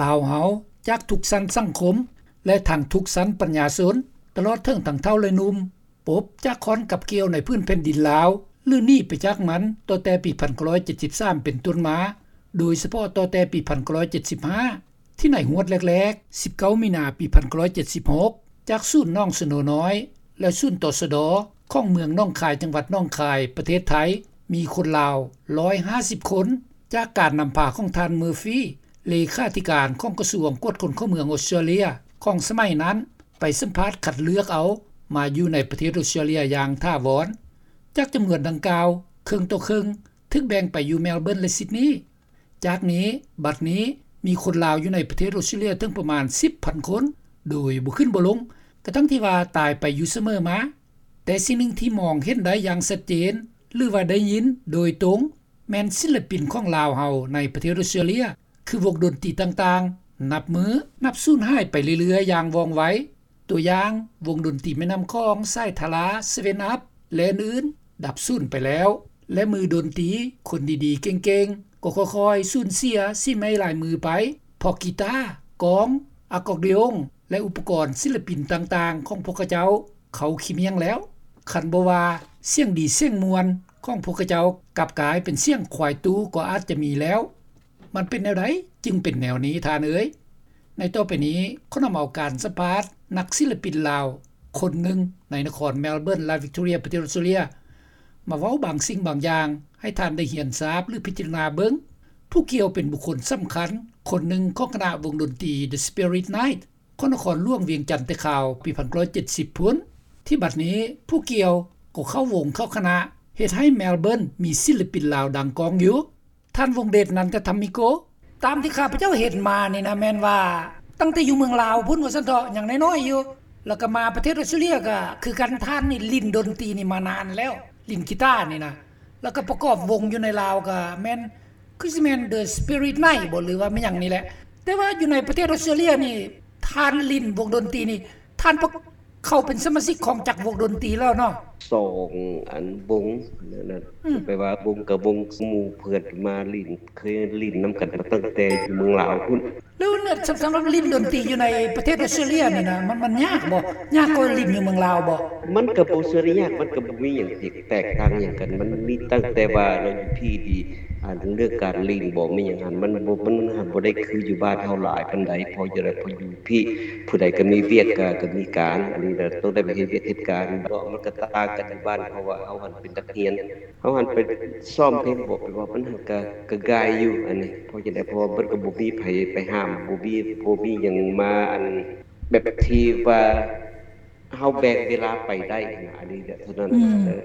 ລາວເຮົາຈາກທຸກຊັ້ນສັງຄົມ ແລະ ທັງທຸກຊັ້ນປັນຍາຊົນ ຕະຫຼອດເຖິງທັງເຖົ້າ ແລະ ໜຸ່ມ ປົບຈາກຄອນກັບກ່ຽວໃນພື້ນແຜ່ນດິນລາວ ຫຼື ໜີໄປຈາກມັນ ຕັ້ງແຕ່ປີພັນເກົ້າຮ້ອຍເຈັດສິບສາມເປັນຕົ້ນມາ, ໂດຍສະເພາະຕັ້ງແຕ່ປີພັນເກົ້າຮ້ອຍເຈັດສິບຫ້າ ທີ່ໃນຮວດແລກໆ ສິບເກົ້າ ມີນາ ປີພັນເກົ້າຮ້ອຍເຈັດສິບຫົກ ຈາກສູນໜອງສະໂນນ້ອຍ ແລະ ສູນ ຕສດ ຂອງເມືອງໜອງຄາຍ ຈັງຫວັດໜອງຄາຍ ປະເທດໄທ ມີຄົນລາວ ຮ້ອຍຫ້າສິບຄົນ ຈາກການນຳພາຂອງທ່ານ ເມີຟີ ເລຂາທິການຂອງກະຊວງກວດຄົນເຂົ້າເມືອງອົດສະຕຣາເລຍ ຂອງສະໄໝນັ້ນ ໄປສຳພາດຄັດເລືອກເອົາມາຢູ່ໃນປະເທດອົດສະຕຣາເລຍຢ່າງຖາວອນ. ຈາກຈຳນວນດັ່ງກ່າວ ເຄິ່ງຕໍ່ເຄິ່ງ ຖືກແບ່ງໄປຢູ່ແມລເບີນ ແລະ ຊິດນີ. ຈາກນີ້ ບັດນີ້ມີຄົນລາວຢູ່ໃນປະເທດອົດສະຕຣາເລຍເຖິງປະມານສິບພັນຄົນ ໂດຍບໍ່ຂຶ້ນບໍ່ລົງ ກະທັ່ງທີ່ວ່າຕາຍໄປຢູ່ສະເໝີມາ. ແຕ່ສິ່ງໜຶ່ງທີ່ມອງເຫັນໄດ້ຢ່າງຊັດເຈນ ຫຼືວ່າໄດ້ຍິນໂດຍຕົງ ແມ່ນສິນລະປິນຂອງລາວເຮົາໃນປະເທດອົດສະຕຣາເລຍ ຄືວົງດົນຕີຕ່າງໆ ນັບມື້ນັບສູນຫາຍໄປເລື້ອຍໆຢ່າງວ່ອງໄວ. ຕົວຢ່າງ ວົງດົນຕີແມ່ນ້ຳຂອງ ສາຍທາລາ ເຊເວັນອັບ ແລະ ອື່ນໆ ດັບສູນໄປແລ້ວ ແລະ ມືດົນຕີຄົນດີໆເກັ່ງໆ ກໍຄ່ອຍໆສູນເສຍສີໄມ້ລາຍມືໄປ ເພາະກີຕາ, ກອງ, ອາກອດດີອົງ ແລະ ອຸປະກອນສິນລະປິນຕ່າງໆຂອງພວກເຂົາເຈົ້າ ເຂົາຂີ້ມ້ຽງແລ້ວ. ຄັນບໍ່ວ່າສຽງດີສຽງມ່ວນຂອງພວກເຂົາເຈົ້າ ກັບກາຍເປັນສຽງຄວາຍຕູ້ກໍອາດຈະມີແລ້ວ. ມັນເປັນແນວໃດຈຶ່ງເປັນແນວນີ້ທ່ານເອີຍ? ໃນຕໍ່ໄປນີ້ ຂໍນຳເອົາການສຳພາດນັກສິນລະປິນລາວຄົນໜຶ່ງໃນນະຄອນແມລເບີນ ລັດວິກຕໍເຣຍ ປະເທດອົດສະຕຣາເລຍ ມາເວົ້າບາງສິ່ງບາງຢ່າງໃຫ້ທ່ານໄດ້ຮຽນຊາບ ຫຼື ພິຈາລະນາເບິ່ງ. ຜູ້ກ່ຽວເປັນບຸກຄົນສຳຄັນຄົນໜຶ່ງຂອງຄະນະວົງດົນຕີ The Spirit Night ຂອງນະຄອນຫຼວງວຽງຈັນແຕ່ຄາວປີພັນເກົ້າຮ້ອຍເຈັດສິບພຸ້ນ ທີ່ບັດນີ້ຜູ້ກ່ຽວກໍເຂົ້າວົງເຂົ້າຄະນະ ເຮັດໃຫ້ແມລເບີນມີສິນລະປິນລາວດັງກ້ອງຢູ່. ທ່ານ ວົງເດດ ນັນທະທຳມິໂກ. ຕາມທີ່ຂ້າພະເຈົ້າເຫັນມານີ້ນະ ແມ່ນວ່າຕັ້ງແຕ່ຢູ່ເມືອງລາວພຸ້ນວ່າຊັ້ນເຖາະ ຍັງນ້ອຍໆຢູ່ ແລ້ວກໍມາປະເທດອົດສະຕຣາເລຍກໍຄືກັນ. ທ່ານນີ້ຫຼິ້ນດົນຕີນີ້ມານານແລ້ວ ຫຼິ້ນກີຕານີ້ນະ ແລ້ວກໍປະກອບວົງຢູ່ໃນລາວກໍແມ່ນ ຄືຊິແມ່ນ The Spirit Night ບໍ ຫຼືວ່າແມ່ນຫຍັງນີ້ແຫຼະ. ແຕ່ວ່າຢູ່ໃນປະເທດອົດສະຕຣາເລຍນີ້ ທ່ານຫຼິ້ນວົງດົນຕີນີ້ ທ່ານປະ ເຂົ້າເປັນສະມາຊິກຂອງຈັກວົງດົນຕີແລ້ວເນາະ? ສອງອັນວົງນັ້ນນະ ອືມ ແປວ່າວົງກັບວົງ ໝູ່ເພື່ອນມາຫຼິ້ນ ເຄີຍຫຼິ້ນນຳກັນມາຕັ້ງແຕ່ຢູ່ເມືອງລາວພຸ້ນ. ແລ້ວສຳ ສຳລັບຫຼິ້ນດົນຕີຢູ່ໃນປະເທດອົດສະຕຣາເລຍນີ້ນະ ມັນ ມັນຍາກບໍ່? ຍາກກວ່າຫຼິ້ນຢູ່ເມືອງລາວບໍ່? ມັນກໍບໍ່ເຊີງຍາກ ມັນກໍບໍ່ມີຫຍັງທີ່ແຕກຕ່າງຫຍັງກັນ. ມັນມີຕັ້ງແຕ່ວ່າເນາະ ຢູ່ພີ້ນີ້ ອັນເລື່ອງການຫຼິ້ນບໍ່ ມີຫຍັງຫັ້ນ ມັນບໍ່ ມັນຫັ້ນບໍ່ໄດ້ຄືຢູ່ບ້ານເຮົາຫຼາຍປານໃດ. ເພາະຈັ່ງໃດ ເພາະຢູ່ພີ້ ຜູ້ໃດກໍມີວຽກ ກໍ ກໍມີການ ອັນນີ້ນະ ຕ້ອງໄດ້ໄປເຮັດວຽກເຮັດການເນາະ. ມັນກໍຕ່າງກັນຢູ່ບ້ານ ເພາະວ່າເຮົາຫັ້ນເປັນນັກຮຽນ ເຮົາຫັ້ນໄປຊ້ອມເພງບໍ່ ໄປເວົ້າ ມັນຫັ້ນກໍ ກໍງ່າຍຢູ່ ອັນນີ້. ເພາະຈັ່ງໃດ ເພາະວ່າມັນກໍບໍ່ມີໃຜໄປຫ້າມ ບໍ່ມີ ບໍ່ມີຫຍັງມາ ອັນ ແບບທີ່ວ່າ ເຮົາແບ່ງເວລາໄປໄດ້ນະ ອັນນີ້ແຫຼະເທົ່ານັ້ນ. ອືມ ເອີ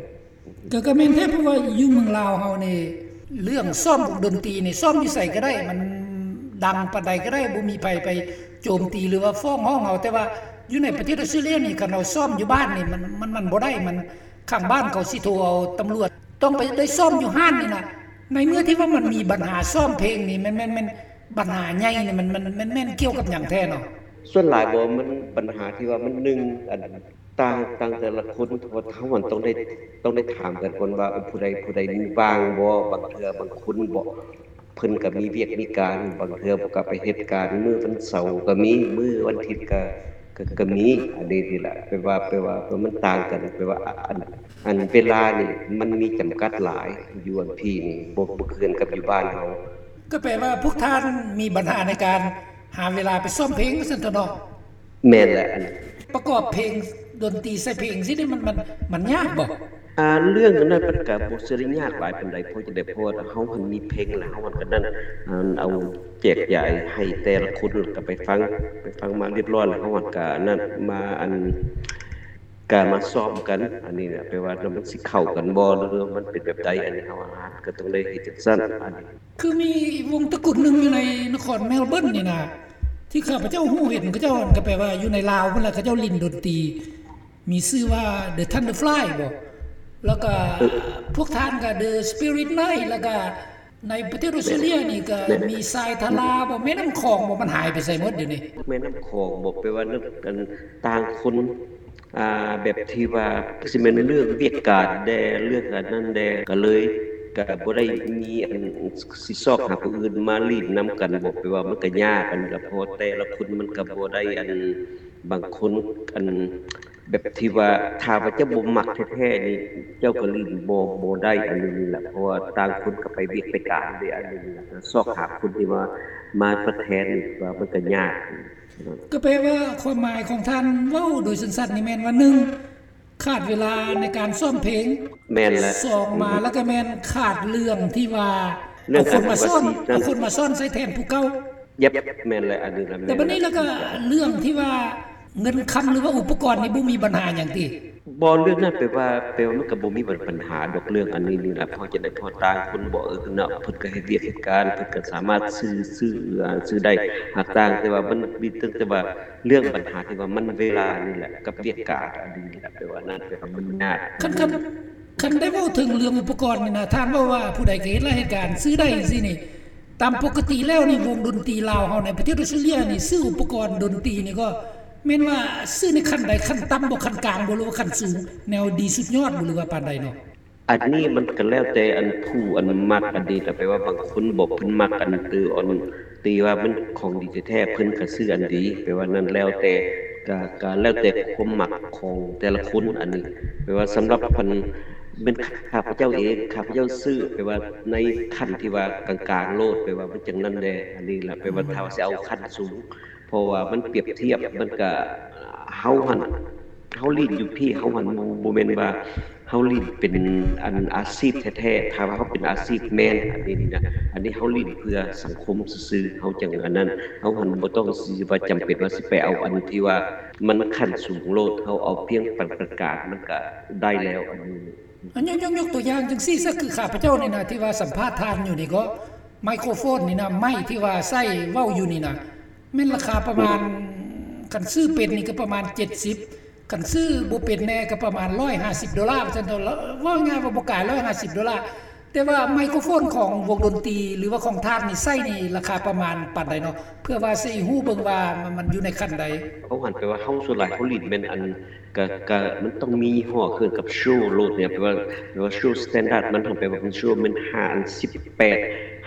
ກໍ ກໍແມ່ນແທ້ ເພາະວ່າຢູ່ເມືອງລາວເຮົານີ້ ເລື່ອງຊ້ອມວົງດົນຕີນີ້ ຊ້ອມຢູ່ໃສກໍໄດ້ ມັນດັງປານໃດກໍໄດ້ ບໍ່ມີໃຜໄປໂຈມຕີ ຫຼືວ່າຟ້ອງຮ້ອງເຮົາ. ແຕ່ວ່າຢູ່ໃນປະເທດອົດສະຕຣາເລຍນີ້ ຄັນເຮົາຊ້ອມຢູ່ບ້ານນີ້ ມັນ ມັນ ມັນບໍ່ໄດ້ ມັນ ຂ້າງບ້ານເຂົາຊິໂທເອົາຕຳຫຼວດ ຕ້ອງໄປໄດ້ຊ້ອມຢູ່ຮ້ານນີ້ນະ. ໃນເມື່ອທີ່ວ່າມັນມີບັນຫາຊ້ອມເພງນີ້ ແມ່ນ ແມ່ນ ແມ່ນບັນຫາໃຫຍ່ນີ້ ມັນ ມັນ ມັນແມ່ນກ່ຽວກັບຫຍັງແທ້ເນາະ? ສ່ວນຫຼາຍບໍ່ ມັນບັນຫາທີ່ວ່າມັນ ໜຶ່ງ ອັນ ຕ່າງ ຕ່າງແຕ່ລະຄົນ ເພາະວ່າເຮົາມັນຕ້ອງໄດ້ ຕ້ອງໄດ້ຖາມກັນກ່ອນວ່າ ເອີ ຜູ້ໃດ ຜູ້ໃດວ່າງບໍ່. ບາງເທື່ອບາງຄົນບໍ່ ເພິ່ນກໍມີວຽກມີການ ບາງເທື່ອກໍໄປເຮັດການ ມື້ວັນເສົາກໍມີ ມື້ວັນທິດກໍ ກໍ ກໍມີ. ອັນນີ້ ນີ້ແຫຼະ ແປວ່າ ແປວ່າ ແປວ່າມັນຕ່າງກັນ ແປວ່າ ອັນ ອັນເວລານີ້ມັນມີຈຳກັດຫຼາຍ ຢູ່ອັນພີ້ນີ້ ບໍ່ ບໍ່ຄືກັນກັບຢູ່ບ້ານເຮົາ. ກໍແປວ່າພວກທ່ານມີບັນຫາໃນການຫາເວລາໄປຊ້ອມເພງ ວ່າຊັ້ນເຖາະເນາະ? ແມ່ນແຫຼະ ອັນປະກອບເພງ ດົນຕີໃສ່ເພງຊີ້ນີ້ ມັນ ມັນ ມັນຍາກບໍ່? ອ່າ ເລື່ອງນັ້ນມັນກໍບໍ່ເຊີງຍາກຫຼາຍປານໃດ ເພາະຈັ່ງໃດ ເພາະວ່າເຮົາຫັ້ນມີເພງ ແລ້ວເຮົາຫັ້ນກໍນັ້ນ ອັນ ເອົາແຈກຢາຍໃຫ້ແຕ່ລະຄົນ ແລ້ວກໍໄປຟັງ ໄປຟັງມາຮຽບຮ້ອຍ ແລ້ວເຮົາຫັ້ນກໍນັ້ນມາ ອັນ ກະມາຊ້ອມກັນ ອັນນີ້ນະ ແປວ່າມັນຊິເຂົ້າກັນບໍ່ ຫຼືວ່າມັນເປັນແບບໃດ ອັນນີ້ເຮົາ ເຮົາກໍຕ້ອງໄດ້ເຮັດຈັ່ງຊັ້ນ. ອັນນີ້ຄືມີວົງຕະກຸນໜຶ່ງຢູ່ໃນນະຄອນແມລເບີນນີ້ນະ ທີ່ຂ້າພະເຈົ້າຮູ້ເຫັນ ເຂົາເຈົ້າ ກໍແປວ່າຢູ່ໃນລາວພຸ້ນລະ ເຂົາເຈົ້າຫຼິ້ນດົນຕີ ມີຊື່ວ່າ The Thunderfly ບໍ ແລ້ວກໍ ເອີ ພວກທ່ານກໍ The Spirit Night ແລ້ວກໍ ໃນປະເທດອົດສະຕຣາເລຍນີ້ກໍ ແມ່ນ ມີຊາຍທາລາບໍ ແມ່ນ້ຳຂອງບໍ ມັນຫາຍໄປໃສໝົດດຽວນີ້? ແມ່ນ້ຳຂອງບໍ ແປວ່ານັ້ນ ອັນ ຕ່າງຄົນ ອ່າ ແບບທີ່ວ່າ ຄືຊິແມ່ນເລື່ອງວຽກການແດ່ ເລື່ອງອັນນັ້ນແດ່ ກໍເລີຍ ກໍບໍ່ໄດ້ມີອັນຊິຊອກຫາຜູ້ອື່ນມາຫຼິ້ນນຳກັນບໍ ແປວ່າມັນກໍຍາກຫັ້ນລະ ເພາະວ່າແຕ່ລະຄົນມັນກໍບໍ່ໄດ້ອັນ ບາງຄົນອັນ ແບບທີ່ວ່າຖ້າວ່າເຈົ້າບໍ່ມັກແທ້ໆນີ້ ເຈົ້າກໍຫຼິ້ນບໍ່ ບໍ່ໄດ້ອັນນີ້ນີ້ແຫຼະ ເພາະວ່າຕ່າງຄົນກໍໄປວຽກໄປການເດ້ ອັນນີ້ນີ້ແຫຼະ ຊອກຫາຄົນທີ່ວ່າມາທົດແທນນີ້ວ່າມັນກໍຍາກ. ກໍແປວ່າຄວາມໝາຍຂອງທ່ານເວົ້າໂດຍສັ້ນໆນີ້ແມ່ນວ່າ ໜຶ່ງ ຂາດເວລາໃນການຊ້ອມເພງ ແມ່ນແຫຼະ ສອງມາແລ້ວກໍແມ່ນຂາດເລື່ອງທີ່ວ່າເອົາຄົນມາສອນ ເອົາຄົນມາສອນໃສ່ແທນຜູ້ເກົ່າ. ແມ່ນແຫຼະ ອັນນີ້ລະ ແຕ່ບັດນີ້ແລ້ວກໍເລື່ອງທີ່ວ່າເງິນຄຳ ຫຼືວ່າອຸປະກອນນີ້ບໍ່ມີບັນຫາຫຍັງຕິ? ບໍ່ ເລື່ອງນັ້ນແປວ່າ ແປວ່າມັນກໍບໍ່ມີບັນ ບັນຫາດອກເລື່ອງອັນນີ້ນີ້ລະ ເພາະຈັ່ງໃດ ເພາະຕ່າງຄົນບໍ່ ເອີ ເນາະ ເພິ່ນກໍເຮັດວຽກເຮັດການ ເພິ່ນກໍສາມາດຊື້ ຊື້ ອາ ຊື້ໄດ້ ຫາກຕ່າງ ແຕ່ວ່າມັນມີຕັ້ງແຕ່ວ່າເລື່ອງບັນຫາທີ່ວ່າມັນເວລານີ້ແຫຼະ ກັບວຽກການອັນນີ້ນີ້ແຫຼະ ແປວ່ານັ້ນ ແປວ່າມັນຍາກ. ຄັນ ຄັນ ຄັນໄດ້ເວົ້າເຖິງເລື່ອງອຸປະກອນນີ້ນະ ທ່ານເວົ້າວ່າຜູ້ໃດກໍເຮັດລາຍເຮັດການ ຊື້ໄດ້ຈັ່ງຊີ້ນີ້ ຕາມປົກກະຕິແລ້ວນີ້ ວົງດົນຕີລາວເຮົາໃນປະເທດອອສເຕຣເລຍນີ້ ຊື້ອຸປະກອນດົນຕີນີ້ກໍແມ່ນວ່າຊື້ໃນຂັ້ນໃດ? ຂັ້ນຕ່ຳບໍ? ຂັ້ນກາງບໍ? ຫຼືວ່າຂັ້ນສູງ? ແນວດີສຸດຍອດບໍ? ຫຼືວ່າປານໃດເນາະ? ອັນນີ້ມັນກໍແລ້ວແຕ່ອັນຜູ້ອັນມັກອັນນີ້ແຫຼະ ແປວ່າບາງຄົນບໍ ເພິ່ນມັກອັນຕື່ອອນຕີວ່າມັນຂອງດີແທ້ໆ ເພິ່ນກໍຊື້ອັນດີ ແປວ່ານັ້ນແລ້ວແຕ່ ກໍ ກໍແລ້ວແຕ່ຄວາມມັກຂອງແຕ່ລະຄົນອັນນີ້ ແປວ່າສຳລັບອັນ ແມ່ນຂ້າພະເຈົ້າເອງ ຂ້າພະເຈົ້າຊື້ ແປວ່າໃນຂັ້ນທີ່ວ່າກາງໆໂລດ ແປວ່າມັນຈັ່ງນັ້ນແດ່ ອັນນີ້ລະ ແປວ່າຖ້າວ່າຊິເອົາຂັ້ນສູງ ເພາະວ່າມັນປຽບທຽບ ມັນກະ ເຮົາຫັ້ນ ເຮົາຫຼິ້ນຢູ່ພີ້ ເຮົາຫັ້ນບໍ່ ບໍ່ແມ່ນວ່າເຮົາຫຼິ້ນເປັນອັນອາຊີບແທ້ໆ ຖ້າວ່າເຮົາເປັນອາຊີບແມ່ນ ອັນນີ້ນີ້ນະ ອັນນີ້ເຮົາຫຼິ້ນເພື່ອສັງຄົມຊື່ໆ ເຮົາຈັ່ງອັນນັ້ນ ເຮົາຫັ້ນບໍ່ຕ້ອງຊິວ່າຈຳເປັນວ່າຊິໄປເອົາອັນທີ່ວ່າມັນຂັ້ນສູງໂລດ ເຮົາເອົາພຽງປານກາງໆ ມັນກະໄດ້ແລ້ວ ອັນນີ້. ອັນຍົກ ຍົກ ຍົກຕົວຢ່າງຈັ່ງຊີ້ຊະ ຄືຂ້າພະເຈົ້ານີ້ນະ ທີ່ວ່າສຳພາດທ່ານຢູ່ນີ້ກໍ ໄມໂຄຣໂຟນນີ້ນະ ໄມທີ່ວ່າໃຊ້ເວົ້າຢູ່ນີ້ນະ ແມ່ນລາຄາປະມານ ຄັນຊື້ເປັນນີ້ກໍປະມານເຈັດສິບ ຄັນຊື້ບໍ່ເປັນແດ່ກໍປະມານຮ້ອຍຫ້າສິບໂດລາ ວ່າຊັ້ນເຖາະ ເວົ້າງ່າຍວ່າບໍ່ກາຍຮ້ອຍຫ້າສິບໂດລາ. ແຕ່ວ່າໄມໂຄຣໂຟນຂອງວົງດົນຕີ ຫຼືວ່າຂອງທ່ານນີ້ໃຊ້ນີ້ລາຄາປະມານປານໃດເນາະ? ເພື່ອວ່າຊິຮູ້ເບິ່ງວ່າມັນ ມັນຢູ່ໃນຂັ້ນໃດ. ເຮົາຫັ້ນແປວ່າເຮົາ ສ່ວນຫຼາຍເຮົາຫຼິ້ນແມ່ນອັນ ກະ ກະມັນຕ້ອງມີຍີ່ຫໍ້ເຄື່ອງກັບໂຊໂລດນີ້ ແປວ່າ ແປວ່າໂຊສະແຕນດາດມັນຫັ້ນ ແປວ່າເປັນໂຊແມ່ນຫ້າ ອັນສິບແປດ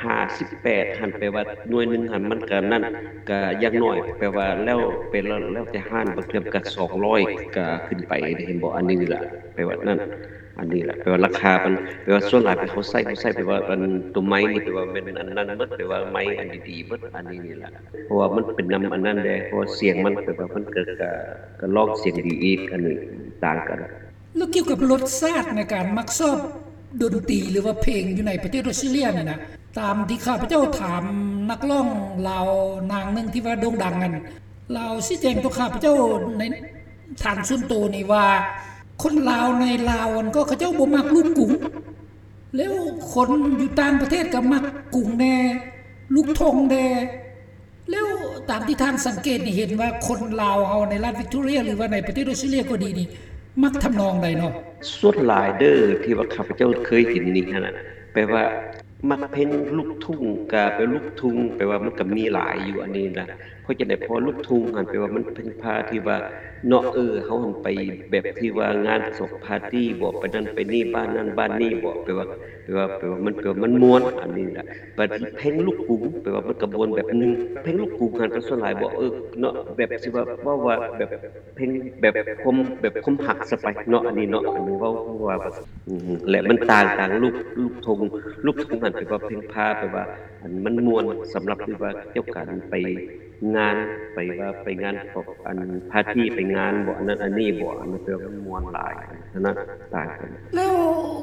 ຫ້າສິບແປດຫັ້ນ ແປວ່າໜ່ວຍໜຶ່ງຫັ້ນມັນກະນັ້ນ ກະຢ່າງໜ້ອຍ ແປວ່າແລ້ວ ແປວ່າແລ້ວແຕ່ຮ້ານ ບາງເທື່ອກະສອງຮ້ອຍກະຂຶ້ນໄປເດ້ ເຫັນບໍ່? ອັນນີ້ນີ້ລະ ແປວ່ານັ້ນ ອັນນີ້ລະ ແປວ່າລາຄາມັນ ແປວ່າສ່ວນຫຼາຍເຮົາໃຊ້ ເຮົາໃຊ້ ແປວ່າອັນໂຕໄມ້ນີ້ ແປວ່າແມ່ນອັນນັ້ນໝົດ ແປວ່າໄມ້ອັນດີໆໝົດ ອັນນີ້ນີ້ລະ ເພາະວ່າມັນເປັນນຳອັນນັ້ນແດ່ ເພາະວ່າສຽງມັນ ແປວ່າມັນກະ ກະ ກະຮ້ອງສຽງດີອີກ ອັນນີ້ຕ່າງກັນ. ແລ້ວກ່ຽວກັບລົດຊາດໃນການມັກຊອບດົນຕີ ຫຼືວ່າເພງຢູ່ໃນປະເທດອອສເຕຣເລຍນີ້ນະ ຕາມທີ່ຂ້າພະເຈົ້າຖາມນັກຮ້ອງລາວນາງໜຶ່ງທີ່ວ່າໂດ່ງດັງນັ້ນ ລາວຊີ້ແຈງຕໍ່ຂ້າພະເຈົ້າໃນທາງສ່ວນໂຕນີ້ວ່າ ຄົນລາວໃນລາວຫັ້ນກໍເຂົາເຈົ້າບໍ່ມັກລູກກຸງ ແລ້ວຄົນຢູ່ຕ່າງປະເທດກໍມັກກຸງແດ່ ລູກທົ່ງແດ່. ແລ້ວຕາມທີ່ທ່ານສັງເກດນີ້ ເຫັນວ່າຄົນລາວເຮົາໃນລັດວິກຕໍເຣຍ ຫຼືວ່າໃນປະເທດອອສເຕຣເລຍກໍດີນີ້ ມັກທຳນອງໃດເນາະ? ສ່ວນຫຼາຍເດີ ທີ່ວ່າຂ້າພະເຈົ້າເຄີຍເຫັນນີ້ຫັ້ນນະ ແປວ່າມັກເພງລູກທຸ່ງ ກະແປລູກທຸ່ງ ແປວ່າມັນກະມີຫຼາຍຢູ່ອັນນີ້ນະ ເພາະຈັ່ງໃດ ເພາະວ່າລູກທຸ່ງຫັ້ນ ແປວ່າມັນເປັນພາທີ່ວ່າເນາະ ເອີ ເຮົາຫັ້ນໄປແບບທີ່ວ່າງານສອບປາຕີ້ບໍ ໄປນັ້ນໄປນີ້ ບ້ານນັ້ນບ້ານນີ້ບໍ ແປວ່າ ແປວ່າ ແປວ່າມັນ ແປວ່າມັນມ່ວນອັນນີ້ນະ. ບັດເພງລູກກຸງ ແປວ່າມັນກະມ່ວນແບບໜຶ່ງ ເພງລູກກຸງຫັ້ນກະສ່ວນຫຼາຍບໍ ເອີ ເນາະ ແບບຊິວ່າ ເວົ້າວ່າແບບເພງແບບຄວາມ ແບບຄວາມຮັກຊະໄປເນາະ ອັນນີ້ເນາະ ອັນນີ້ເວົ້າ ເວົ້າວ່າ ແລະມັນຕ່າງ ຕ່າງລູກ ລູກທົ່ງ ລູກທົ່ງຫັ້ນແປວ່າເພງພາ ແປວ່າອັນມັນມ່ວນສຳລັບທີ່ວ່າກ່ຽວກັນໄປ ງານ ໄປວ່າໄປງານ ອັນປາຕີ້ ໄປງານບໍ ອັນນັ້ນອັນນີ້ບໍ ອັນນັ້ນແປວ່າມັນມ່ວນຫຼາຍ ອັນນັ້ນຕ່າງກັນ. ແລ້ວ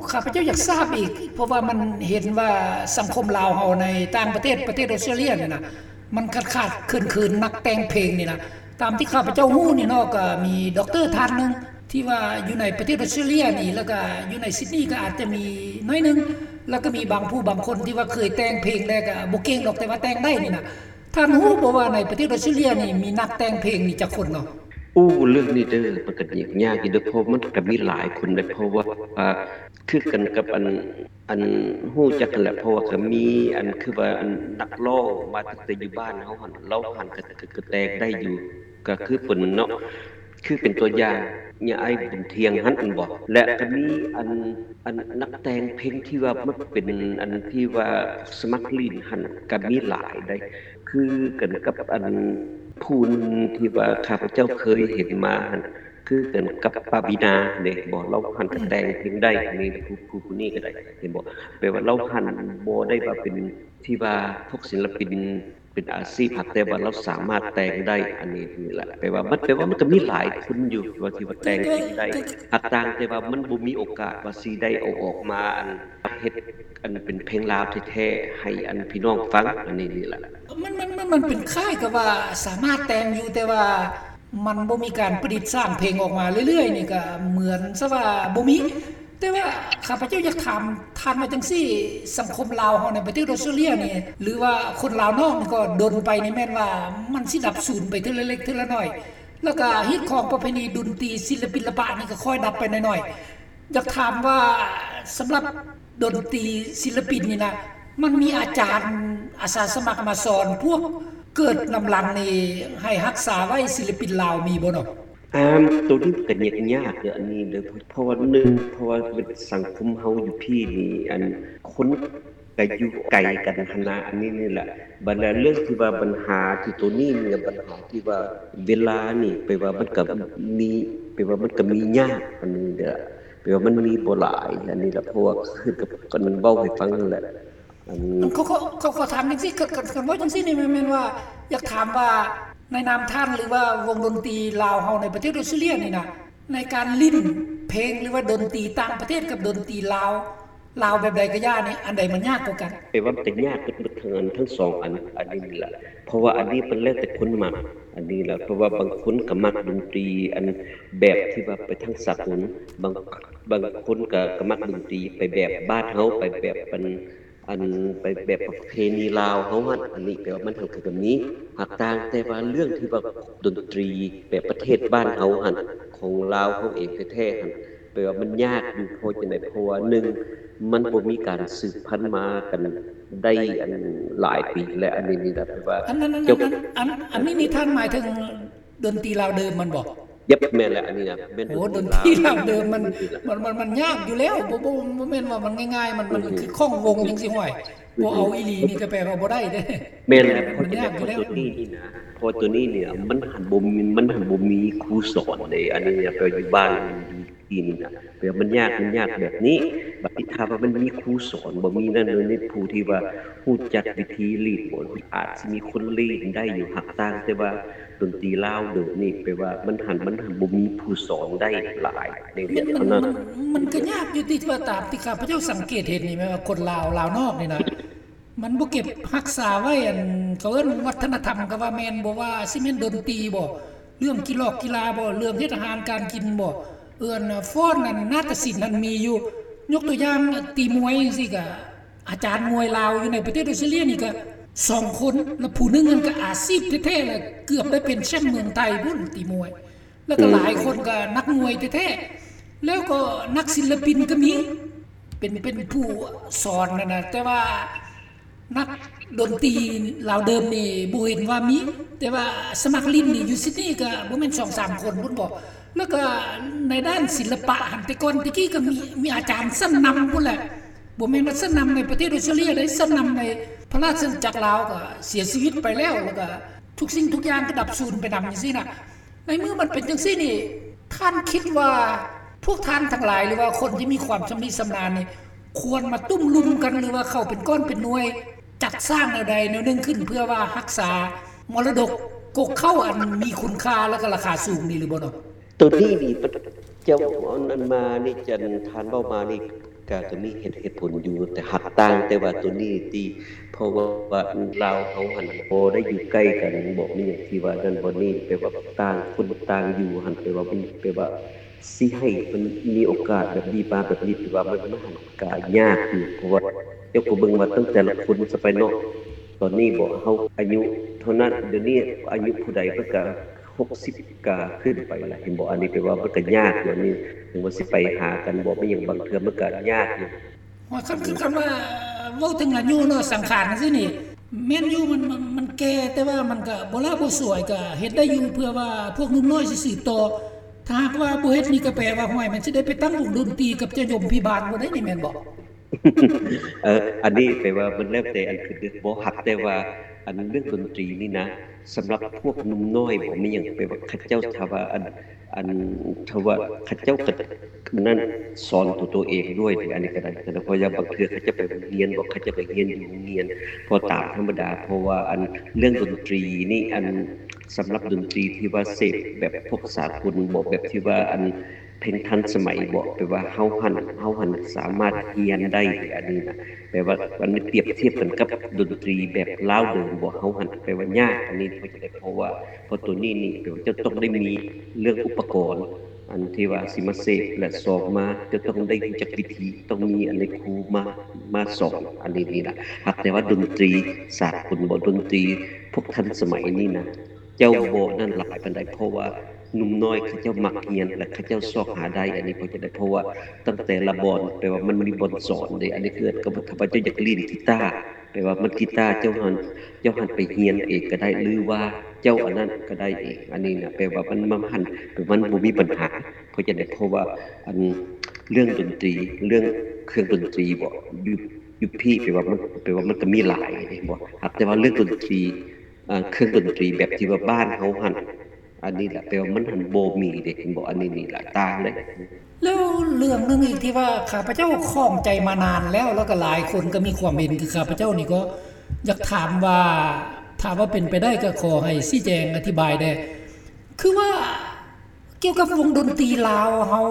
ຂ້າພະເຈົ້າຢາກຊາບອີກ ເພາະວ່າມັນເຫັນວ່າສັງຄົມລາວເຮົາໃນຕ່າງປະເທດ ປະເທດອອສເຕຣເລຍນີ້ນະ ມັນຂາດຂາດເຂີນເຂີນນັກແຕ່ງເພງນີ້ນະ ຕາມທີ່ຂ້າພະເຈົ້າຮູ້ນີ້ເນາະ ກະມີດັອກເຕີທ່ານໜຶ່ງ ທີ່ວ່າຢູ່ໃນປະເທດອອສເຕຣເລຍນີ້ ແລ້ວກະຢູ່ໃນຊິດນີກະອາດຈະມີໜ້ອຍໜຶ່ງ ແລ້ວກະມີບາງຜູ້ບາງຄົນທີ່ວ່າເຄີຍແຕ່ງເພງແລ້ວກະບໍ່ເກັ່ງດອກ ແຕ່ວ່າແຕ່ງໄດ້ນີ້ນະ. ທ່ານຮູ້ບໍ່ວ່າໃນປະເທດອອສເຕຣເລຍນີ້ມີນັກແຕ່ງເພງນີ້ຈັກຄົນເນາະ? ໂອ້ ເລື່ອງນີ້ເດີ ມັນກະຍາກຢູ່ເດີ ເພາະມັນກະມີຫຼາຍຄົນເດ້ ເພາະວ່າ ອ່າ ຄືກັນກັບອັນ ອັນຮູ້ຈັກຫັ້ນແຫຼະ ເພາະວ່າກະມີອັນ ຄືວ່າອັນນັກຮ້ອງມາຕັ້ງແຕ່ຢູ່ບ້ານເຮົາຫັ້ນ ລາວຫັ້ນກະ ກະ ກະແຕ່ງໄດ້ຢູ່ ກະຄືເພິ່ນເນາະ ຄືເປັນຕົວຢ່າງ ຍາອ້າຍບຸນທ່ຽງຫັ້ນແມ່ນບໍ່? ແລະກໍມີອັນ ອັນນັກແຕ່ງເພງທີ່ວ່າມັກເປັນອັນທີ່ວ່າສະໝັກຫຼິ້ນຫັ້ນກໍມີຫຼາຍໃດ໋ ຄືກັນກັບອັນຜູ້ໜຶ່ງທີ່ວ່າຂ້າພະເຈົ້າເຄີຍເຫັນມາຫັ້ນ ຄືກັນກັບປາວີນາເດ້ບໍ່? ລາວຫັ້ນກໍແຕ່ງເພງໄດ້ ອັນນີ້ຜູ້ ຜູ້ ຜູ້ນີ້ກໍໄດ້ ເຫັນບໍ່? ແປວ່າລາວຫັ້ນບໍ່ໄດ້ວ່າເປັນທີ່ວ່າພວກສິນລະປິນ ເປັນອາຊີບ ຫາກແຕ່ວ່າລາວສາມາດແຕ່ງໄດ້ ອັນນີ້ນີ້ແຫຼະ ແປວ່າມັນ ແປວ່າມັນກໍມີຫຼາຍຄົນຢູ່ທີ່ວ່າ ທີ່ວ່າແຕ່ງເພງໄດ້ ຫາກຕ່າງແຕ່ວ່າມັນບໍ່ມີໂອກາດວ່າຊິໄດ້ເອົາອອກມາ ອັນເຮັດ ອັນເປັນເພງລາວແທ້ໆ ໃຫ້ອັນພີ່ນ້ອງຟັງ ອັນນີ້ນີ້ແຫຼະ. ມັນ ມັນ ມັນ ມັນເປັນຄ້າຍກັບວ່າສາມາດແຕ່ງຢູ່ ແຕ່ວ່າມັນບໍ່ມີການປະດິດສ້າງເພງອອກມາເລື້ອຍໆ ນີ້ກໍເໝືອນຊະວ່າບໍ່ມີ. ແຕ່ວ່າຂ້າພະເຈົ້າຢາກຖາມທ່ານວ່າຈັ່ງຊີ້ ສັງຄົມລາວເຮົາໃນປະເທດອອສເຕຣເລຍນີ້ ຫຼືວ່າຄົນລາວນອກນີ້ກໍດົນໄປນີ້ແມ່ນວ່າມັນຊິດັບສູນໄປເທື່ອລະເລັກເທື່ອລະໜ້ອຍ ແລ້ວກໍຮີດຄອງປະເພນີດົນຕີສິລະປິນລະປະນີ້ກໍຄ່ອຍດັບໄປໜ້ອຍໆ. ຢາກຖາມວ່າສຳລັບດົນຕີສິລະປິນນີ້ນະ ມັນມີອາຈານອາສາສະໝັກມາສອນພວກເກີດນຳຫຼັງນີ້ ໃຫ້ຮັກສາໄວ້ສິລະປິນລາວມີບໍ່ເນາະ? ອາ ໂຕນີ້ກໍຍາກ ຍາກເດີ້ ອັນນີ້ເດີ້ ເພາະວ່າ ໜຶ່ງ ເພາະວ່າສັງຄົມເຮົາຢູ່ພີ້ນີ້ ອັນຄົນກໍຢູ່ໄກກັນຫັ້ນນະ ອັນນີ້ນີ້ແຫຼະ. ບັດແລ້ວເລື່ອງທີ່ວ່າບັນຫາທີ່ໂຕນີ້ນີ້ ບັນຫາທີ່ວ່າເວລານີ້ ແປວ່າມັນກໍມີ ແປວ່າມັນກໍມີຍາກ ອັນນີ້ເດີ້ ແປວ່າມັນມີບໍ່ຫຼາຍ ອັນນີ້ແຫຼະ ເພາະວ່າຄືກັບອັນເວົ້າໃຫ້ຟັງຫັ້ນແຫຼະ. ອັນ ອັນ ຂໍ ຂໍ ຂໍ ຂໍຖາມຈັ່ງຊີ້ ຄັນ ຄັນ ຄັນເວົ້າຈັ່ງຊີ້ນີ້ ແມ່ນ ແມ່ນວ່າຢາກຖາມວ່າ ໃນນາມທ່ານ ຫຼືວ່າວົງດົນຕີລາວເຮົາໃນປະເທດອອສເຕຣເລຍນີ້ນະ ໃນການຫຼິ້ນເພງ ຫຼືວ່າດົນຕີຕ່າງປະເທດກັບດົນຕີລາວ ລາວແບບໃດກໍຢ່ານີ້ ອັນໃດມັນຍາກກວ່າກັນ? ແປວ່າມັນກໍຍາກເບິດ ເບິດທັງອັນ ທັງສອງອັນ ອັນນີ້ນີ້ແຫຼະ ເພາະວ່າອັນນີ້ມັນແລ້ວແຕ່ຄົນມັກ ອັນນີ້ແຫຼະ ເພາະວ່າບາງຄົນກໍມັກດົນຕີອັນແບບທີ່ວ່າໄປທາງສາກົນ ບາງ ບາງຄົນກໍ ກໍມັກດົນຕີໄປແບບບ້ານເຮົາ ໄປແບບອັນ ອັນໄປແບບປະເພນີລາວເຮົາຫັ້ນ ອັນນີ້ແປວ່າມັນຫັ້ນກໍມີ ຫາກຕ່າງແຕ່ວ່າເລື່ອງທີ່ວ່າດົນຕີແບບປະເທດບ້ານເຮົາຫັ້ນ ຂອງລາວເຮົາເອງແທ້ໆຫັ້ນ ແປວ່າມັນຍາກຢູ່ ເພາະຈັ່ງໃດ ເພາະວ່າ ໜຶ່ງ ມັນບໍ່ມີການສືບພັນມາກັນໄດ້ອັນຫຼາຍປີ ແລະ ອັນນີ້ນີ້ນະ ແປວ່າ ອັນ ອັນ ອັນ ອັນ ອັນ ອັນນີ້ນີ້ທ່ານໝາຍເຖິງ ດົນຕີລາວເດີມມັນບໍ່? ເຢັບ ແມ່ນແຫຼະ ອັນນີ້ນະ ແມ່ນ ໂອ້ ດົນຕີລາວເດີມມັນ ມັນ ມັນ ມັນຍາກຢູ່ແລ້ວ ບໍ່ ບໍ່ ບໍ່ແມ່ນວ່າມັນງ່າຍໆ ມັນ ມັນຄືຂ້ອງວົງຈັ່ງຊີ້ ຫ້ວຍ ບໍ່ເອົາອີ່ຫຼີນີ້ກໍແປວ່າບໍ່ໄດ້ເດ້. ແມ່ນແຫຼະ ມັນຍາກຢູ່ແລ້ວ ເພາະໂຕນີ້ນີ້ນະ ເພາະໂຕນີ້ນີ້ນະ ມັນຫັ້ນບໍ່ມີ ມັນຫັ້ນບໍ່ມີຄູສອນເດ້ ອັນນີ້ນະ ແປວ່າຢູ່ບ້ານຢູ່ທີ່ນີ້ນະ ແປວ່າມັນຍາກ ມັນຍາກແບບນີ້ ບັດນີ້ຖ້າວ່າມັນມີຄູສອນ ບໍ່ມີນັ້ນ ມີຜູ້ທີ່ວ່າຮູ້ຈັກວິທີຫຼິ້ນ ອາດຊິມີຄົນຫຼິ້ນໄດ້ຢູ່ ຫາກຕ່າງແຕ່ວ່າ ດົນຕີລາວເດີມນີ້ ແປວ່າມັນຫັ້ນ ມັນຫັ້ນບໍ່ມີຜູ້ສອນໄດ້ຫຼາຍໃນວຽດເທົ່ານັ້ນ. ມັນ ມັນ ມັນກໍຍາກຢູ່ຕິ ວ່າຕາມທີ່ຂ້າພະເຈົ້າສັງເກດເຫັນນີ້ ແມ່ນວ່າຄົນລາວ ລາວນອກນີ້ນະ ມັນບໍ່ເກັບຮັກສາໄວ້ ອັນ ເຂົາເອີ້ນວັດທະນະທຳກໍວ່າແມ່ນ ບໍ່ວ່າຊິແມ່ນດົນຕີບໍ ເລື່ອງກິລອກກິລາບໍ ເລື່ອງເຮັດອາຫານການກິນບໍ ເອີ້ນຟ້ອນ ອັນນາດຕະສິນຫັ້ນມີຢູ່ ຍົກຕົວຢ່າງຕີມວຍຈັ່ງຊີ້ກະ ອາຈານມວຍລາວຢູ່ໃນປະເທດອອສເຕຣເລຍນີ້ກະສອງຄົນ ແລະ ຜູ້ໜຶ່ງນັ້ນກະອາຊີບແທ້ໆ ແລະ ເກືອບໄດ້ເປັນແຊ້ມເມືອງໄທພຸ້ນ ຕີມວຍ ແລ້ວກະຫຼາຍຄົນກະນັກມວຍແທ້ໆ ແລ້ວກໍນັກສິນລະປິນກະມີ ເປັນ ເປັນຜູ້ສອນຫັ້ນນະ ແຕ່ວ່ານັກດົນຕີລາວເດີມນີ້ບໍ່ເຫັນວ່າມີ ແຕ່ວ່າສະໝັກຫຼິ້ນນີ້ຢູ່ຊິດນີກະບໍ່ແມ່ນສອງສາມຄົນພຸ້ນບໍ ແລ້ວກະໃນດ້ານສິລະປະຫັ້ນ ແຕ່ກ່ອນແຕ່ກີ້ກະມີ ມີອາຈານຊັ້ນນຳພຸ້ນແຫຼະ ບໍ່ແມ່ນວ່າຊັ້ນນຳໃນປະເທດອອສເຕຣເລຍເດ້ ຊັ້ນນຳໃນພະລາຊະອານາຈັກລາວກະເສຍຊີວິດໄປແລ້ວ ແລ້ວກະທຸກສິ່ງທຸກຢ່າງກະດັບສູນໄປນຳຈັ່ງຊີ້ນະ. ໃນເມື່ອມັນເປັນຈັ່ງຊີ້ນີ້ ທ່ານຄິດວ່າພວກທ່ານທັງຫຼາຍ ຫຼືວ່າຄົນທີ່ມີຄວາມຊຳນິຊຳນານນີ້ ຄວນມາຕຸ້ມລຸມກັນ ຫຼືວ່າເຂົ້າເປັນກ້ອນເປັນໜ່ວຍ ຈັດສ້າງແນວໃດແນວໜຶ່ງຂຶ້ນ ເພື່ອວ່າຮັກສາມໍລະດົກກົກເຄົ້າອັນມີຄຸນຄ່າ ແລະ ກະລາຄາສູງນີ້ຫຼືບໍ່ເນາະ? ໂຕນີ້ນີ້ ເຈົ້າອັນ ອັນມານີ້ ອັນທ່ານເວົ້າມານີ້ ກະ ກະມີເຫດ ເຫດຜົນຢູ່ ແຕ່ຫາກຕ່າງແຕ່ວ່າໂຕນີ້ຕິ ເພາະວ່າລາວເຮົາຫັ້ນບໍ່ໄດ້ຢູ່ໃກ້ກັນ ບໍ່ມີຫຍັງທີ່ວ່ານັ້ນບໍ່ນີ້ ແປວ່າຕ່າງຄົນຕ່າງຢູ່ຫັ້ນ ແປວ່າມັນ ແປວ່າຊິໃຫ້ມັນມີໂອກາດແບບນີ້ມາແບບນີ້ ແປວ່າມັນ ມັນຫັ້ນກະຍາກຢູ່ ເພາະວ່າເຈົ້າກໍເບິ່ງວ່າຕັ້ງແຕ່ລະຄົນຊະໄປເນາະ ຕອນນີ້ບໍ ເຮົາອາຍຸເທົ່ານັ້ນ ດຽວນີ້ອາຍຸຜູ້ໃດເພິ່ນກະ ຫົກສິບກະຂຶ້ນໄປລະ ເຫັນບໍ່? ອັນນີ້ແປວ່າມັນກະຍາກຢູ່ ອັນນີ້ເຖິງວ່າຊິໄປຫາກັນບໍ່ ແມ່ນຫຍັງ ບາງເທື່ອມັນກະຍາກຢູ່. ໂອ້ຍ ຄັນ ຄັນ ຄັນວ່າເວົ້າເຖິງອາຍຸເນາະ ສັງຂານຈັ່ງຊີ້ນີ້ ແມ່ນຢູ່ ມັນ ມັນ ມັນແກ່ ແຕ່ວ່າມັນກະບໍ່ຫຼ້າບໍ່ສວຍ ກະເຮັດໄດ້ຢູ່ ເພື່ອວ່າພວກໜຸ່ມນ້ອຍຊິສືບຕໍ່. ຖ້າຫາກວ່າບໍ່ເຮັດນີ້ກໍແປວ່າ ຫ້ວຍ ມັນຊິໄດ້ໄປຕັ້ງວົງດົນຕີກັບເຈົ້າຍົມພິບານບໍ່ໄດ້ນີ້ ແມ່ນບໍ່? ເອີ ອັນນີ້ແປວ່າມັນແລ້ວແຕ່ອັນຂຶ້ນເດ້ ບໍ່ຮັກ ແຕ່ວ່າອັນເລື່ອງດົນຕີນີ້ນະ ສຳລັບພວກໜຸ່ມນ້ອຍບໍ່ມີຫຍັງ ແປວ່າເຂົາເຈົ້າ ຖ້າວ່າອັນ ອັນ ຖ້າວ່າເຂົາເຈົ້າກະນັ້ນ ສອນຕົວໂຕເອງດ້ວຍນີ້ ອັນນີ້ກະໄດ້ ເພາະວ່າບາງເທື່ອເຂົາເຈົ້າໄປໂຮງຮຽນບໍ່ ເຂົາເຈົ້າກະຮຽນຢູ່ໂຮງຮຽນ ເພາະຕາມທຳມະດາ ເພາະວ່າອັນເລື່ອງດົນຕີນີ້ ອັນ ສຳລັບດົນຕີທີ່ວ່າເສບແບບພວກສາກົນບໍ່ ແບບທີ່ວ່າອັນເພງທັນສະໄໝບໍ່ ແປວ່າເຮົາຫັ້ນ ເຮົາຫັ້ນສາມາດຮຽນໄດ້ ອັນນີ້ນະ ແປວ່າອັນນີ້ປຽບທຽບກັນກັບດົນຕີແບບລາວເດີມບໍ່ ເຮົາຫັ້ນແປວ່າຍາກ ອັນນີ້ເພາະຈັ່ງໃດ ເພາະວ່າ ເພາະໂຕນີ້ນີ້ແປວ່າເຈົ້າຕ້ອງໄດ້ມີເລື່ອງອຸປະກອນ ອັນທີ່ວ່າຊິມາເສບ ແລະ ສອງມາເຈົ້າຕ້ອງໄດ້ຮູ້ຈັກວິທີ ຕ້ອງມີອັນໃດຄູມາ ມາສອນ ອັນນີ້ນີ້ລະ ຫາກແຕ່ວ່າດົນຕີສາກົນບໍ່ ດົນຕີພວກທັນສະໄໝນີ້ນະ ເຈົ້າບໍ່ນັ້ນຫຼາຍປານໃດ ເພາະວ່າໜຸ່ມນ້ອຍເຂົາເຈົ້າມັກຮຽນ ແລະ ເຂົາເຈົ້າຊອກຫາໄດ້ ອັນນີ້ເພາະຈັ່ງໃດ ເພາະວ່າຕັ້ງແຕ່ລະບ່ອນ ແປວ່າມັນມີບ່ອນສອນເດ້ ອັນນີ້ຄືກັນກັບຖ້າວ່າເຈົ້າຢາກຫຼິ້ນກີຕາ ແປວ່າມັນກີຕາເຈົ້າຫັ້ນ ເຈົ້າຫັ້ນໄປຮຽນເອງກະໄດ້ ຫຼືວ່າເຈົ້າອັນນັ້ນກະໄດ້ເອງ ອັນນີ້ນະ ແປວ່າມັນ ມັນຫັ້ນ ມັນບໍ່ມີບັນຫາ ເພາະຈັ່ງໃດ ເພາະວ່າອັນເລື່ອງດົນຕີ ເລື່ອງເຄື່ອງດົນຕີບໍ່ ຢູ່ ຢູ່ພີ້ ແປວ່າມັນ ແປວ່າມັນກະມີຫຼາຍເດ້ບໍ່ ຫາກແຕ່ວ່າເລື່ອງດົນຕີ ເອີ ເຄື່ອງດົນຕີແບບທີ່ວ່າບ້ານເຮົາຫັ້ນ ອັນນີ້ລະ ແປວ່າມັນຫັ້ນບໍ່ມີເດ້ ເຫັນບໍ່ ອັນນີ້ນີ້ລະຕ່າງເດ້. ແລ້ວເລື່ອງໜຶ່ງອີກທີ່ວ່າຂ້າພະເຈົ້າຂ້ອງໃຈມານານແລ້ວ ແລ້ວກໍຫຼາຍຄົນກໍມີຄວາມເຫັນຄືຂ້າພະເຈົ້ານີ້ ກໍຢາກຖາມວ່າ ຖ້າວ່າເປັນໄປໄດ້ກໍຂໍໃຫ້ຊີ້ແຈງອະທິບາຍແດ່ ຄືວ່າກ່ຽວກັບວົງດົນຕີລາວເຮົາ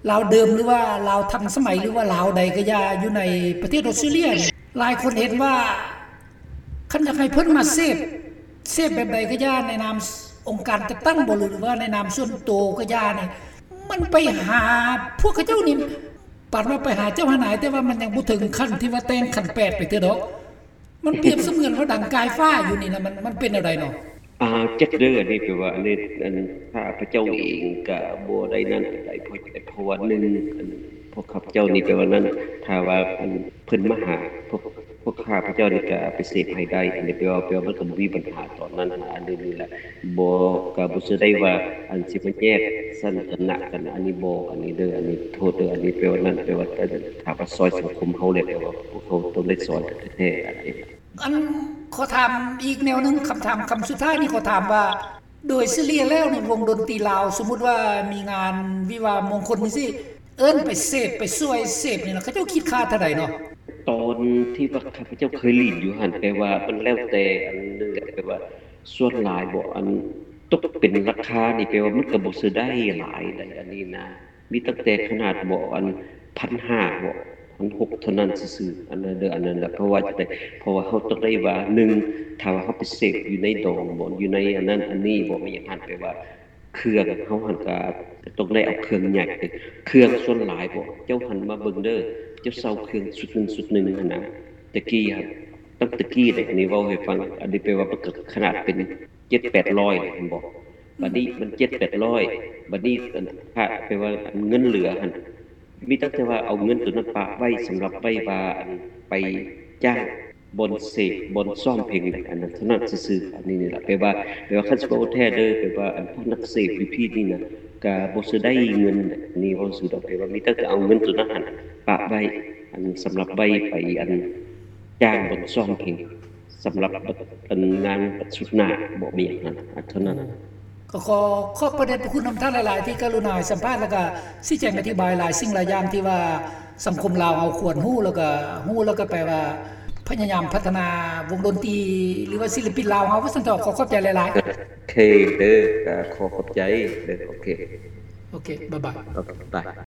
ລາວເດີມ ຫຼືວ່າລາວທັນສະໄໝ ຫຼືວ່າລາວໃດກໍຢ່າ ຢູ່ໃນປະເທດອອສເຕຣເລຍນີ້ ຫຼາຍຄົນເຫັນວ່າ ຄັນຢາກໃຫ້ເພິ່ນມາເສບ ເສບແບບໃດກໍຢ່າ ໃນນາມອົງການຈັດຕັ້ງບໍ່ ຫຼືວ່າໃນນາມສ່ວນໂຕກໍຢ່ານີ້ ມັນໄປຫາພວກເຂົາເຈົ້ານີ້ ປານວ່າໄປຫາເຈົ້າຫານາຍ ແຕ່ວ່າມັນຍັງບໍ່ເຖິງຂັ້ນທີ່ວ່າແຕ່ງຂັນແປດໄປເທື່ອດອກ ມັນປຽບສະເໝືອນວ່າດັງກາຍຟ້າຢູ່ນີ້ນະ ມັນ ມັນເປັນແນວໃດເນາະ? ອ່າ ຈັກເດີ ອັນນີ້ແປວ່າ ອັນນີ້ ອັນ ຂ້າພະເຈົ້າເອງກະບໍ່ໄດ້ນັ້ນປານໃດ ເພາະ ເພາະວ່າໜຶ່ງ ອັນ ພວກຂ້າພະເຈົ້ານີ້ແປວ່ານັ້ນ ຖ້າວ່າ ອັນ ເພິ່ນມາຫາພວກ ພວກຂ້າພະເຈົ້ານີ້ກະໄປເສບໃຫ້ໄດ້ ອັນນີ້ແປວ່າ ແປວ່າມັນກະບໍ່ມີບັນຫາຕອນນັ້ນ ອັນນີ້ນີ້ແຫຼະ ບໍ່ ກະບໍ່ເຊື່ອໄດ້ວ່າ ອັນ ຊິມາແຍກຊັ້ນຖານະກັນ ອັນນີ້ບໍ່ ອັນນີ້ເດີ ອັນນີ້ໂທດເດີ ອັນນີ້ແປວ່ານັ້ນ ແປວ່າ ອັນ ຖ້າວ່າຊ່ອຍສັງຄົມເຮົາແລ້ວ ແປວ່າພວກເຮົາຕ້ອງໄດ້ຊ່ອຍກັນແທ້ໆ ອັນນີ້. ອັນ ຂໍຖາມອີກແນວໜຶ່ງ ຄຳຖາມຄຳສຸດທ້າຍນີ້ ຂໍຖາມວ່າ ໂດຍສະເລ່ຍແລ້ວນີ້ ວົງດົນຕີລາວ ສົມມຸດວ່າມີງານວິວາມງຄົນຈັ່ງຊີ້ ເອີ້ນໄປເສບ ໄປຊ່ວຍເສບນີ້ນະ ເຂົາເຈົ້າຄິດຄ່າເທົ່າໃດເນາະ? ຕອນທີ່ວ່າຂ້າພະເຈົ້າເຄີຍຫຼິ້ນຢູ່ຫັ້ນ ແປວ່າມັນແລ້ວແຕ່ອັນໜຶ່ງແຫຼະ ແປວ່າສ່ວນຫຼາຍບໍ່ ອັນຕົກເປັນລາຄານີ້ ແປວ່າມັນກະບໍ່ເຊີໄດ້ຫຼາຍໃດ ອັນນີ້ນະ ມີຕັ້ງແຕ່ຂະໜາດບໍ່ ອັນ ພັນຫ້າບໍ່ ພັນຫົກເທົ່ານັ້ນຊື່ໆ ອັນນັ້ນເດີ ອັນນັ້ນລະ ເພາະວ່າຈັ່ງໃດ ເພາະວ່າເຮົາຕ້ອງໄດ້ວ່າ ໜຶ່ງ ຖ້າວ່າເຮົາໄປເສບຢູ່ໃນດອງບໍ່ ຢູ່ໃນອັນນັ້ນອັນນີ້ບໍ່ ມີຫຍັງຫັ້ນ ແປວ່າເຄື່ອງເຮົາຫັ້ນກະຕ້ອງໄດ້ເອົາເຄື່ອງໃຫຍ່ ເຄື່ອງສ່ວນຫຼາຍບໍ່ ເຈົ້າຫັ້ນມາເບິ່ງເດີ ເຈົ້າເຊົ່າເຄື່ອງຊຸດໜຶ່ງຊຸດໜຶ່ງຫັ້ນນະ ແຕ່ກີ້ຫັ້ນ ຕັ້ງແຕ່ກີ້ເດ້ ອັນນີ້ເວົ້າໃຫ້ຟັງ ອັນນີ້ແປວ່າມັນກະຂະໜາດເປັນ ເຈັດແປດຮ້ອຍເຫັນບໍ່ ບາດນີ້ມັນເຈັດແປດຮ້ອຍ ບາດນີ້ອັນ ຖ້າແປວ່າອັນເງິນເຫຼືອຫັ້ນ ມີຕັ້ງແຕ່ວ່າເອົາເງິນໂຕນັ້ນປະໄວ້ສຳລັບໄວ້ວ່າອັນໄປຈ້າງບ່ອນເສບ ບ່ອນຊ້ອມເພງ ອັນນັ້ນເທົ່ານັ້ນຊື່ໆ ອັນນີ້ນີ້ລະ ແປວ່າ ແປວ່າຄັນຊິເວົ້າແທ້ເດີ ແປວ່າອັນພວກນັກເສບຢູ່ພີ້ນີ້ນະ ກະບໍ່ເຊີໄດ້ເງິນ ອັນນີ້ເວົ້າຊື່ດອກ ແປວ່າມີຕັ້ງແຕ່ເອົາເງິນໂຕນັ້ນຫັ້ນປະໄວ້ ອັນສຳລັບໄວ້ໄປອັນຈ້າງບ່ອນຊ້ອມເພງ ສຳລັບບັດ ອັນງານບັດຊຸດໜ້າບໍ່ມີຫຍັງຫັ້ນ ອັນເທົ່ານັ້ນ. ກໍຂໍຂອບພະເດດພະຄຸນນຳທ່ານຫຼາຍໆ ທີ່ກະລຸນາໃຫ້ສຳພາດ ແລ້ວກະຊີ້ແຈງອະທິບາຍຫຼາຍສິ່ງຫຼາຍຢ່າງທີ່ວ່າສັງຄົມລາວເຮົາຄວນຮູ້ ແລ້ວກະຮູ້ ແລ້ວກະແປວ່າພະຍາຍາມພັດທະນາວົງດົນຕີ ຫຼືວ່າສິລະປິນລາວເຮົາ ວ່າຊັ້ນເຖາະ. ຂໍຂອບໃຈຫຼາຍໆ. ໂອເຄເດີ ກະຂໍຂອບໃຈເດີ. ໂອເຄ ໂອເຄ ບາຍບາຍ. ໂອເຄ ບາຍ.